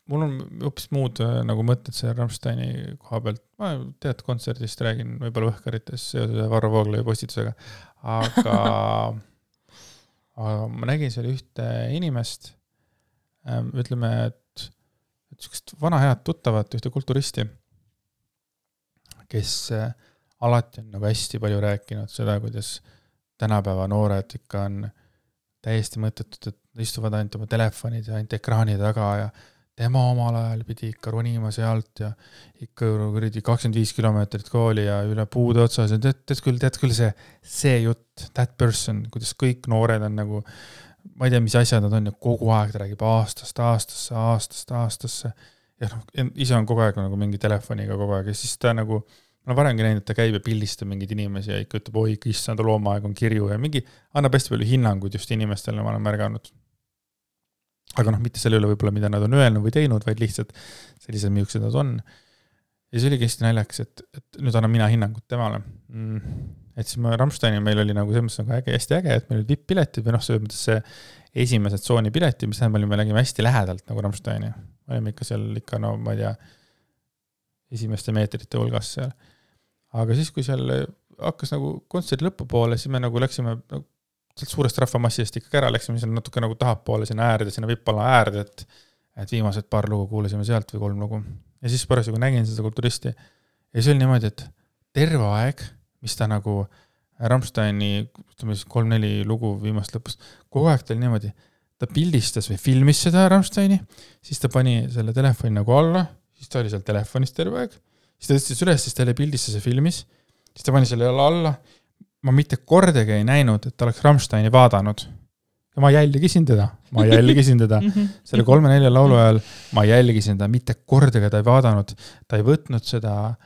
Mul on hoopis muud nagu mõtted see Rammsteini koha pealt. Ma tead kontserdist räägin võib-olla õhkarites seoses Varro Vooglaiu postitusega. Aga ma nägin seal ühte inimest, ütleme, et vana head tuttavat, ühte kulturisti, kes alati on nagu hästi palju rääkinud seda, kuidas tänapäeva noored ikka on täiesti mõttetud, et istuvad ainult oma telefonid ja ainult ekraani taga ja tema omal ajal pidi ikka ronima sealt ja ikka 25 kilomeetrit kooli ja üle puude otsas ja tead küll see jutt, that person, kuidas kõik noored on nagu, ma ei tea, mis asjad nad on ja kogu aeg ta räägib aastasse ja ise on kogu aeg nagu mingi telefoniga kogu aeg ja siis ta nagu, ma olen varemgi näinud, et ta käib ja pildistab mingid inimesi ja ikka ütleb, oi, issand, loomaaeg on kirju ja mingi annab hästi palju hinnanguid just inimestele, ma olen märganud. Aga mitte selle üle võib-olla, mida nad on öelnud või teinud, vaid lihtsalt sellised miuksed nad on. Ja see oli hästi naljaks, et nüüd annan mina hinnangut temale. Et siis Rammsteini meil oli nagu selles mõttes hästi äge, et meil olid VIP-piletid või selles mõttes see esimesed tsooni pileti, mis me nägime hästi lähedalt nagu Rammsteini. Olime ikka seal ikka, no ma ei tea, esimeste meetrite hulgas seal. Aga siis, kui seal hakkas nagu kontserdi lõpupoole, siis me nagu läksime sealt suurest rahvamassist ikka ära, läksime seal natuke nagu tahapoole sinna äärde, sinna vippala äärde, et viimased paar lugu kuulasime sealt või 3 lugu. Ja siis pärast, kui nägin seda kulturisti, ja see oli niimoodi, et terve aeg, mis ta nagu Rammsteini 3-4 lugu viimast lõpus, kogu aeg ta oli niimoodi, ta pildistas või filmis seda Rammsteini, siis ta pani selle telefoni nagu alla, siis ta oli seal telefonis terve aeg, siis ta tõstis üles, siis ta oli pildistas ja filmis, siis ta pani selle alla, ma mitte kordagi ei näinud, et ta oleks Rammsteini vaadanud. Ja ma jälgisin teda. Selle 3-4 laulu ajal ma jälgisin teda, mitte kordagi ta ei vaadanud. Ta ei võtnud seda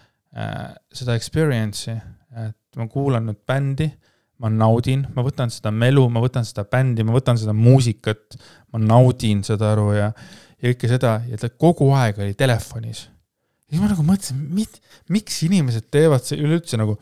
experience'i, et ma kuulan nüüd bändi, ma naudin, ma võtan seda melu, ma võtan seda bändi, ma võtan seda muusikat, ma naudin seda aru ja kõike seda, ja ta kogu aeg oli telefonis. Ja ma nagu mõtlesin, miks inimesed teevad see üleüldse nagu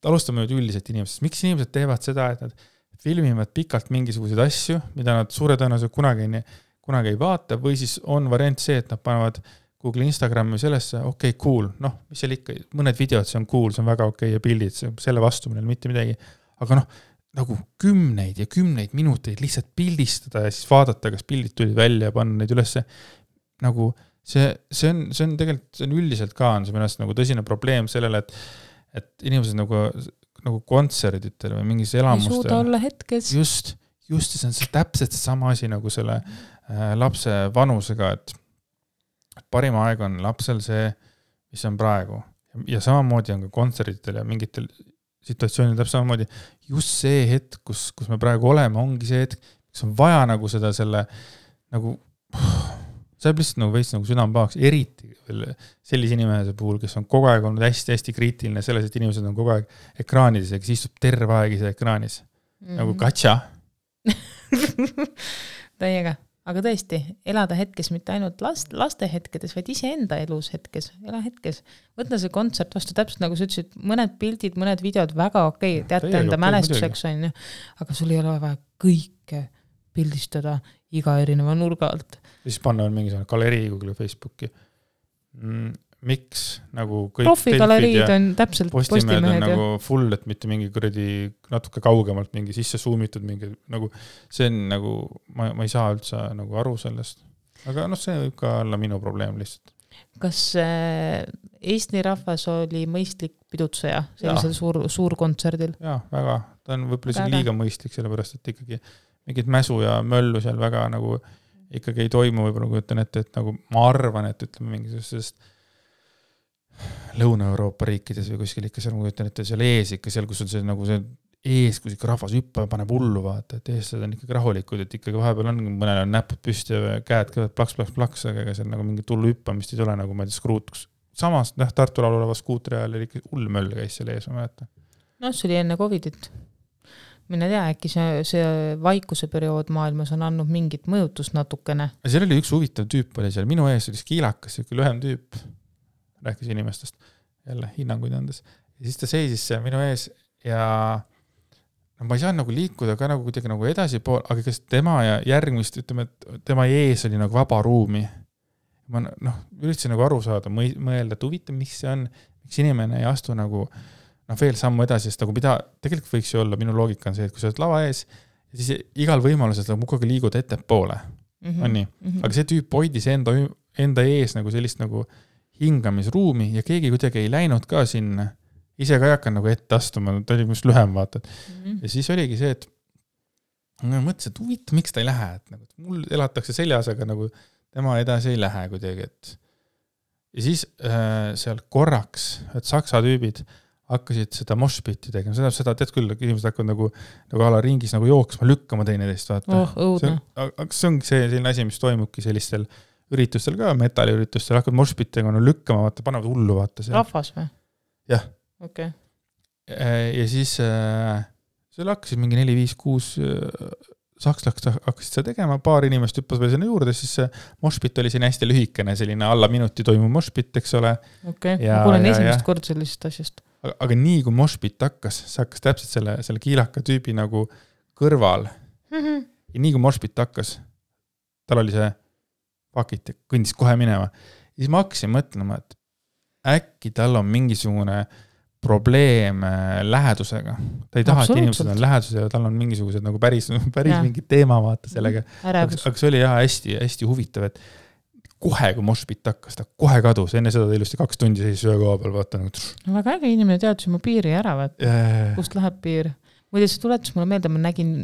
alustame nüüd üldiselt inimesest. Miks inimesed teevad seda, et nad filmivad pikalt mingisuguseid asju, mida nad suure tõenäoliselt kunagi ei vaata, või siis on variant see, et nad panevad Google Instagrami sellesse, okei, cool, noh, mis seal ikka, mõned videod, see on cool, see on väga okei ja pildid, selle vastu meil mitte midagi, aga noh, nagu kümneid ja kümneid minuteid lihtsalt pildistada ja siis vaadata, kas pildid tulid välja ja panna neid ülesse, nagu see on tegelikult, see on üldiselt ka on see mõnest nagu tõsine probleem sellele, et inimesed nagu kontserditel või mingis elamustel. Ei suuda olla hetkes. Just see on täpselt see sama asi nagu selle lapse vanusega, et parim aeg on lapsel see, mis on praegu. Ja samamoodi on ka kontserditel ja mingitel situatsioonil täpselt samamoodi. Just see hetk, kus me praegu oleme, ongi see hetk, kus on vaja nagu seda selle nagu saab lihtsalt nagu veits nagu südamepahaks, eriti sellise inimese puhul, kes on kogu aeg olnud hästi-hästi kriitiline selles, et inimesed on kogu aeg ekraanides ja kes istub terve aeg ise ekraanis. Nagu katša. Täiega. Aga tõesti, elada hetkes mitte ainult laste hetkedes, vaid ise enda elus hetkes. Ela hetkes. Võtna see kontsert vastu täpselt nagu sa ütlesid, mõned pildid, mõned videod väga okei, teate enda mälestuseks on. Aga sul ei ole vaja kõike pildistada iga erineva nurga alt. Siis panna mingisugune galerii Google Facebooki. Miks nagu kõik profigaleriid on täpselt postimehed on nagu full, et mitte mingi kuradi natuke kaugemalt mingi sisse zoomitud mingi nagu see on nagu ma ei saa üldse nagu aru sellest. Aga see võib ka olla minu probleem lihtsalt. Kas Eesti rahvas oli mõistlik pidutseja sellisel suur kontserdil? Jaa, väga. Ta on võib-olla liiga mõistlik, sellepärast, et ikkagi mingid mäsu ja möllu seal väga nagu ikkagi ei toimu, võib-olla kujutan ette, et nagu ma arvan, et ütleme mingisugusest Lõuna-Euroopa riikides või kuskil ikka seal, ma kujutan ette, seal ees ikka seal, kus on see nagu see ees, kus ikka rahvas hüppab, paneb hullu vaata, et eestlased on ikkagi rahulikud, et ikkagi vahepeal on, mõnel on näpud püsti ja käed kõivad plaks, aga ega seal nagu mingit hullu hüppamist ei tule, nagu ma ei tea, skruutuks. Samas, Tartu laul oleva skuutri ajal oli ikka hull möll käis seal ees, ma mäletan. No, see oli enne Covidit. Mine tea, äkki see vaikuse periood maailmas on andnud mingit mõjutust natukene. Seal oli üks huvitav tüüp oli seal, minu ees oli kiilakas, selline lühem tüüp, rääkis inimestest, jälle hinnanguid andes. Ja siis ta seisis seal minu ees ja no, ma ei saa nagu liikuda ka nagu kuidagi nagu edasi pool, aga kas tema ja järgmist, ütleme, et tema ees oli nagu vaba ruumi. Ma üritasin nagu aru saada, mõelda, et huvitav, mis see on, miks inimene ei astu nagu veel sammu edasi, sest nagu mida tegelikult võiks ju olla, minu loogika on see, et kui sa oled lava ees, siis igal võimalusel sa mukaga liigud ettepoole. On nii? Aga see tüüp hoidis enda ees nagu sellist nagu hingamisruumi ja keegi kuidagi ei läinud ka sinna. Ise ka ei hakka nagu ette astuma, ta oli just lühem vaatad. Ja siis oligi see, et ma mõtlesin, et huvitav, miks ta ei lähe. Et nagu, mul elatakse seljas, aga nagu tema edasi ei lähe kuidagi. Ja siis seal korraks, et saksa tüübid hakkasid seda moshpiti tegema. Seda tead küll, inimesed hakkavad nagu ala ringis nagu jooksma, lükkama teineteist. Vaata. See on selline asi, mis toimubki sellistel üritustel ka, metalliüritustel, hakkavad moshpitega lükkama, vaata, panevad hullu. Vaata, rahvas või? Jah. Okay. Ja siis seal hakkasid mingi 4, 5, 6 sakslaks hakkasid seda tegema, paar inimest hüppas veel sinna juurde, siis moshpit oli siin hästi lühikene, selline alla minuti toimuv moshpit, eks ole. Okay. Ma kuulen esimest kord sellisest asjast. Aga nii kui moshpit hakkas, see hakkas täpselt selle kiilaka tüübi nagu kõrval. Ja nii kui moshpit hakkas, tal oli see pakit ja kõndis kohe minema. Ja siis ma hakkasin mõtlema, et äkki tal on mingisugune probleem lähedusega. Ta ei taha, et inimesed on lähedus ja tal on mingisugused nagu päris mingi teema vaata sellega. Aga see oli hästi, hästi huvitav, et kohe, kui moshpit hakkas, ta kohe kadus. Enne seda ta ilusti 2 tundi seisis ühe koha peal, vaata nagu. No väga äge inimene teadus oma piiri ära, vaata. Kust läheb piir. Muide, see tuletus mulle meelde, ma nägin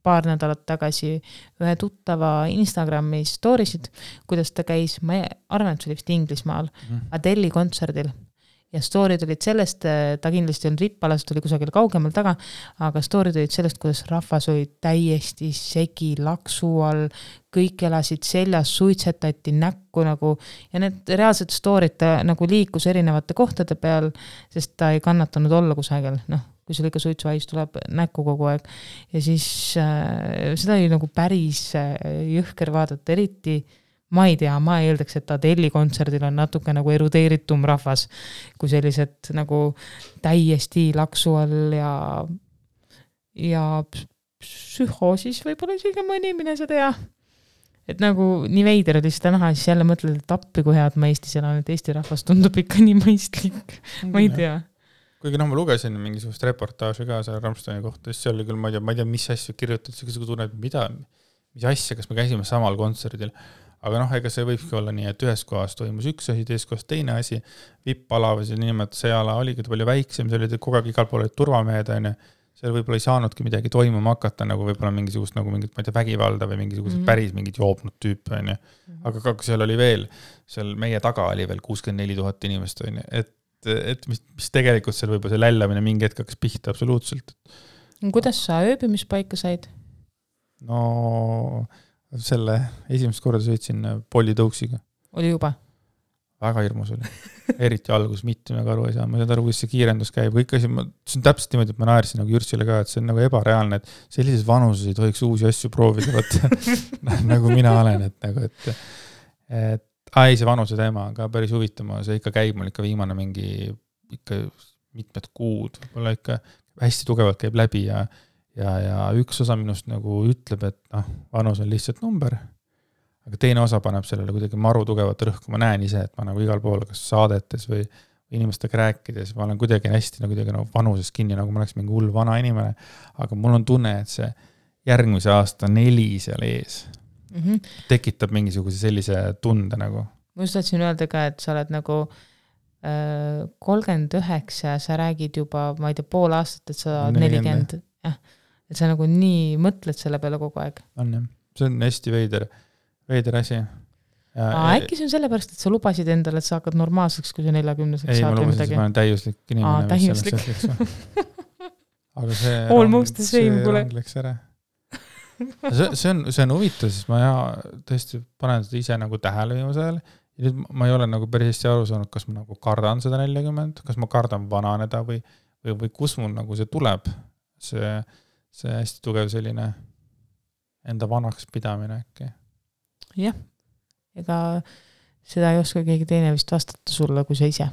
paar nädalat tagasi ühe tuttava Instagrami storisid, kuidas ta käis, ma arvan, et see oli vist Inglismaal, Adeli kontserdil. Ja storid olid sellest, ta kindlasti on rippalas, tuli kusagil kaugemal taga, aga storid olid sellest, kuidas rahvas oli täiesti segi, laksu all, kõik elasid seljas, suitsetati näkku nagu, ja need reaalsed storid ta nagu liikus erinevate kohtade peal, sest ta ei kannatanud olla kusagil, kui sul ikka suitsuhais tuleb näkku kogu aeg. Ja siis seda oli nagu päris jõhker vaadata, eriti ma ei tea, ma eeldaks, et Adeli kontserdil on natuke nagu erudeeritum rahvas, kui sellised nagu täiesti laksu all ja psühhoosis võib-olla isegi mõni mine seda ja. Et nagu nii veider oli seda näha, siis jälle mõtled, et appi kui head ma Eestis elan, et Eesti rahvas tundub ikka nii mõistlik. Ma ei tea. Kuigi ma lugesin mingisugust reportaaži ka selle Rammsteini kohta, siis seal oli küll, ma ei tea, mis asju kirjutad, see tunneb, mis asja, kas me käisime samal kontserdil. Aga ega see võibki olla nii, et ühes kohas toimus üks asi, teises kohas teine asi, vipp-ala või see ala oligi palju väiksem, see oli kogu aeg igal pool olid turvamehed, seal võib-olla ei saanudki midagi toimuma hakata, nagu võib-olla mingisugust nagu mingit, ma ei tea, vägivalda või mingisugused päris mingid joobnud tüüp, aga seal oli veel, seal meie taga oli veel 64 000 inimest, et mis tegelikult seal võib-olla see lällamine mingi hetk hakkas pihta absoluutselt. Kuidas sa ööbimispaika said? No selle esimest korda sõitsin Polly Tõuksiga. Oli juba? Väga hirmus oli. Eriti algus, mitte me aru ei saa. Ma ei saa aru, kuidas see kiirendus käib. Kõik asi, see on täpselt niimoodi, et ma naersin nagu Jürsile ka, et see on nagu ebareaalne, et sellises vanuses ei tohiks uusi asju proovida, nagu mina olen. See vanuse teema on ka päris huvitama. See ikka käib mul ikka viimane mingi ikka mitmed kuud. Võib-olla ikka hästi tugevalt käib läbi ja üks osa minust nagu ütleb, et vanus on lihtsalt number, aga teine osa paneb sellele kuidagi maru tugevat rõhku. Ma näen ise, et ma nagu igal pool, kas saadetes või inimestega rääkides, ma olen kuidagi hästi nagu vanuses kinni, nagu ma oleks mingi hull vana inimene, aga mul on tunne, et see järgmise aasta 4 seal ees tekitab mingisuguse sellise tunde nagu. Ma just tahtsin öelda ka, et sa oled nagu 39, sa räägid juba, ma ei tea, pool aastat, et sa 40, et sa nagu nii mõtled selle peale kogu aeg. On jah, see on hästi veider. veider asi. Äkki see on sellepärast, et sa lubasid endale, et sa hakkad normaalseks, kui sa 40-seks ei, saad ma lubasin, et ma olen täiuslik inimene. Täiuslik. Aga see Almost the same, kuule. Läks ära. See on huvitav, sest ma tõesti panen seda ise nagu tähele viimase ajal. Ja nüüd ma ei ole nagu päris hästi aru saanud, kas ma nagu kardan seda 40, kas ma kardan vananeda või kus mul nagu see tuleb. See hästi tugev selline enda vanaks pidamine äkki. Jah, ega seda ei oska keegi teine vist vastata sulle, kui sa ise.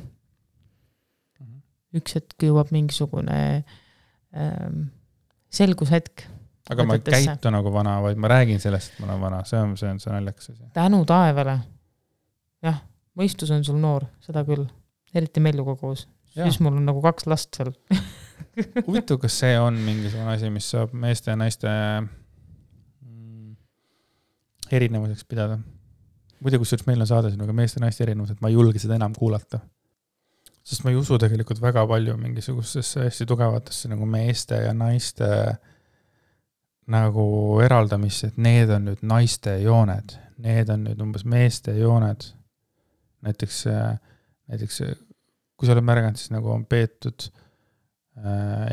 Üks hetk jõuab mingisugune selgushetk. Aga ma ei käitu nagu vana, vaid ma räägin sellest, et ma olen vana. See on naljakas asi. Tänu taevale. Jah, mõistus on sul noor, seda küll. Eriti Melluga koos. Siis mul on nagu 2 last seal. Huvitav, kas see on mingisugune asi, mis saab meeste ja naiste erinevuseks pidada? Muidu, kus meil on saade sinuga meeste ja naiste erinevus, et ma ei julge seda enam kuulata. Sest ma ei usu tegelikult väga palju mingisugustesse hästi tugevatesse nagu meeste ja naiste nagu eraldamisse, et need on nüüd naiste jooned, need on nüüd umbes meeste jooned. Näiteks kui sa oled märganud, siis nagu on peetud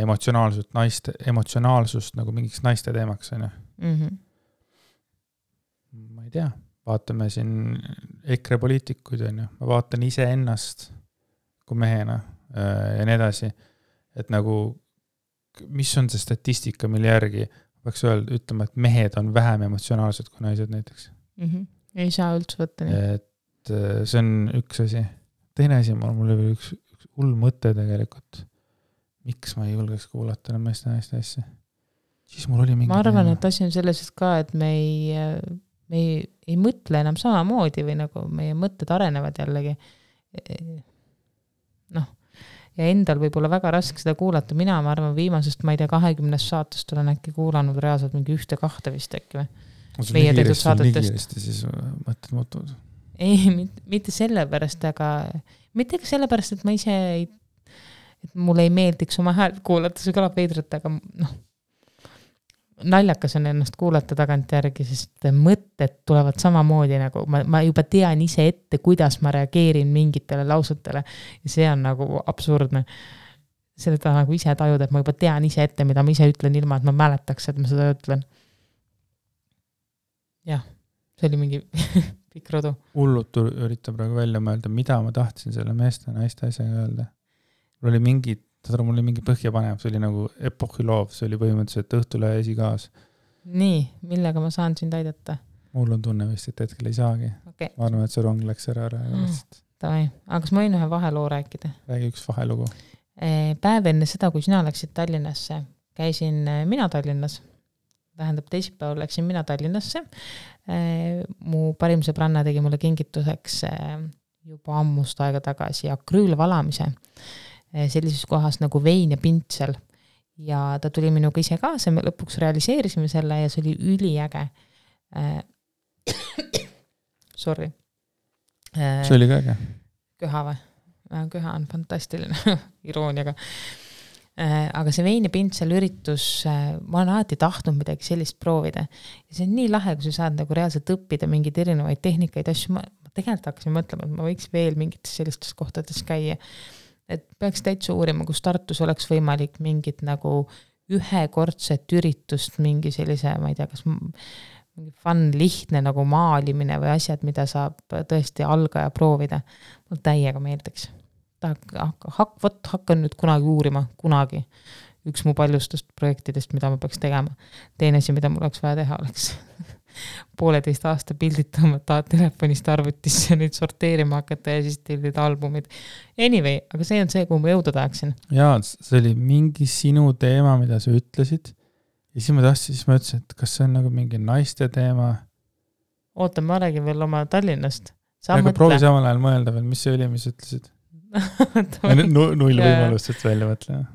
emotsionaalsust nagu mingiks naiste teemaks. Ma ei tea, vaatame siin EKRE poliitikuid, ma vaatan ise ennast kui mehena ja nii edasi, et nagu mis on see statistika, mille järgi peaks ütlema, et mehed on vähem emotsionaalsed kui naised näiteks. Ei saa üldse võtta nii. Et see on üks asi. Teine asi, mul oli üks hull mõte tegelikult. Miks ma ei julgeks kuulata meeste naiste asja? Siis mul oli mingi... Ma arvan, et asi on selles, et ka, et me ei mõtle enam samamoodi või nagu meie mõtted arenevad jällegi. Ja endal võib olla väga raske seda kuulata. Mina arvan viimasest, ma ei tea, 20 saatest olen äkki kuulanud reaalselt mingi 1-2 vist äkki või? Meie tehtud saadetest. Siis mõtted muutuvad. Ei, mitte sellepärast, aga mitte ka sellepärast, et ma ise et mulle ei meeldiks oma häält kuulata, see kõlab veidrat, aga naljakas on ennast kuulata tagant järgi, sest mõtted tulevad samamoodi nagu, ma juba tean ise ette, kuidas ma reageerin mingitele lausetele ja see on nagu absurdne. Seda nagu ise tajuda, et ma juba tean ise ette, mida ma ise ütlen ilma, et ma mäletaks, et ma seda ütlen. Jah, see oli mingi pikk rodu. Hullut üritab praegu välja mõelda, mida ma tahtsin selle meeste ja naiste asjaga öelda. Mul oli mingi põhjapanev, see oli nagu epohhiloov, see oli põhimõtteliselt Õhtule esikaas. Nii, millega ma saan sind aidata? Mul on tunne vist, et hetkel ei saagi. Okay. Ma arvan, et see rong läks ära. Aga kas ma võin ühe vaheloo rääkida? Räägi üks vahelugu. Päev enne seda, kui sina läksid Tallinnasse, käisin mina Tallinnas. Tähendab, teisipäeval läksin mina Tallinnasse. Mu parim sõbranna tegi mulle kingituseks juba ammust aega tagasi akrüülvalamise sellises kohas nagu Vein ja Pintsel. Ja ta tuli minuga ise kaasa, me lõpuks realiseerisime selle ja see oli üliäge. Sorry. See oli ka äge. Köha või? Köha on fantastiline irooniaga. Aga see Vein ja Pintsel üritus, ma olen alati tahtnud midagi sellist proovida. Ja see on nii lahe, kui sa saad nagu reaalselt õppida mingeid erinevaid tehnikaid asju. Ma tegelikult hakkasin mõtlema, et ma võiks veel mingites sellistes kohtades käia. Et peaks täitsa uurima, kus Tartus oleks võimalik mingit nagu ühekordset üritust, mingi sellise, ma ei tea, kas mingi fun, lihtne nagu maalimine või asjad, mida saab tõesti algaja proovida. Mul täiega meeldiks. Hakkan nüüd kunagi uurima, kunagi. Üks mu paljustest projektidest, mida ma peaks tegema. Teine asi, mida mul oleks vaja teha, oleks 1,5 aasta pildid tõmmata telefonist arvutisse nüüd sorteerima hakata ja siis tellida albumid. Anyway, aga see on see, kuhu ma jõuda tahaksin. Jaa, see oli mingi sinu teema, mida sa ütlesid. Ja siis ma ütlesin, et kas see on nagu mingi naiste teema? Oota, ma räägin veel oma Tallinnast. Aga proovi samal ajal mõelda veel, mis see oli, mis ütlesid? Null võimalust, et välja mõtle.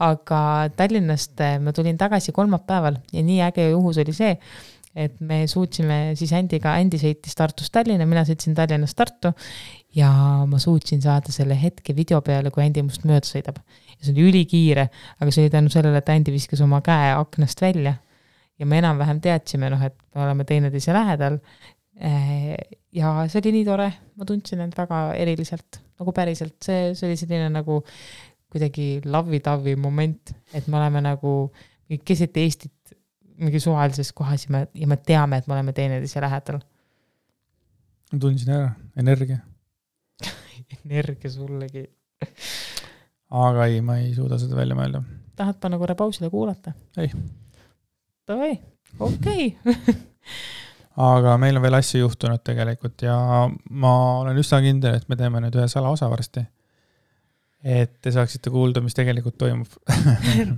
Aga Tallinnast ma tulin tagasi kolmapäeval ja nii äge juhus oli see, et me suutsime siis Andi sõitis Tartust Tallinna, mina sõitsin Tallinnast Tartu ja ma suutsin saada selle hetke video peale, kui Andi must mööda sõidab. Ja see oli ülikiire, aga see oli tänu sellele, et Andi viskas oma käe aknast välja ja me enam-vähem teadsime, et me oleme teineteise lähedal. Ja see oli nii tore, ma tundsin end väga eriliselt, nagu päriselt, see oli selline nagu kuidagi lavi-tavi moment, et me oleme nagu keset Eestit mingi suvalises kohas ja me teame, et me oleme teineteise lähedal. Ma tundsin ära, energia. Energia sullegi. Aga ei, ma ei suuda seda välja mõelda. Tahad panna korra pausile kuulata? Ei. Davai, okei. Aga meil on veel asju juhtunud tegelikult ja ma olen üsna kindel, et me teeme nüüd ühe salaosa varsti. Et te saaksite kuulda, mis tegelikult toimub.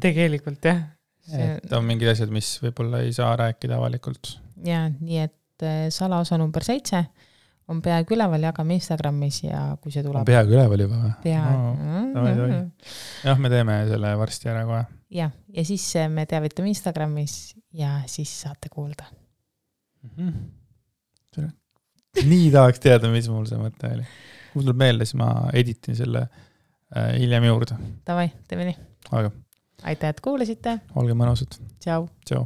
Tegelikult, jah. Et on mingid asjad, mis võib-olla ei saa rääkida avalikult. Ja, nii et salaosa number 7 on peaaegu üleval, jagame Instagramis ja kui see tuleb... On peaaegu üleval juba või? Peaaegu. Jah, me teeme selle varsti ära kohe. Ja siis me teavitame Instagramis ja siis saate kuulda. Nii tahaks teada, mis mul see mõte oli. Mul tuleb meelde, siis ma editin selle hiljem juurde. Davai, teeme nii. Aga. Aitäh, et kuulasite. Olge mõnusad. Tšau. Tšau.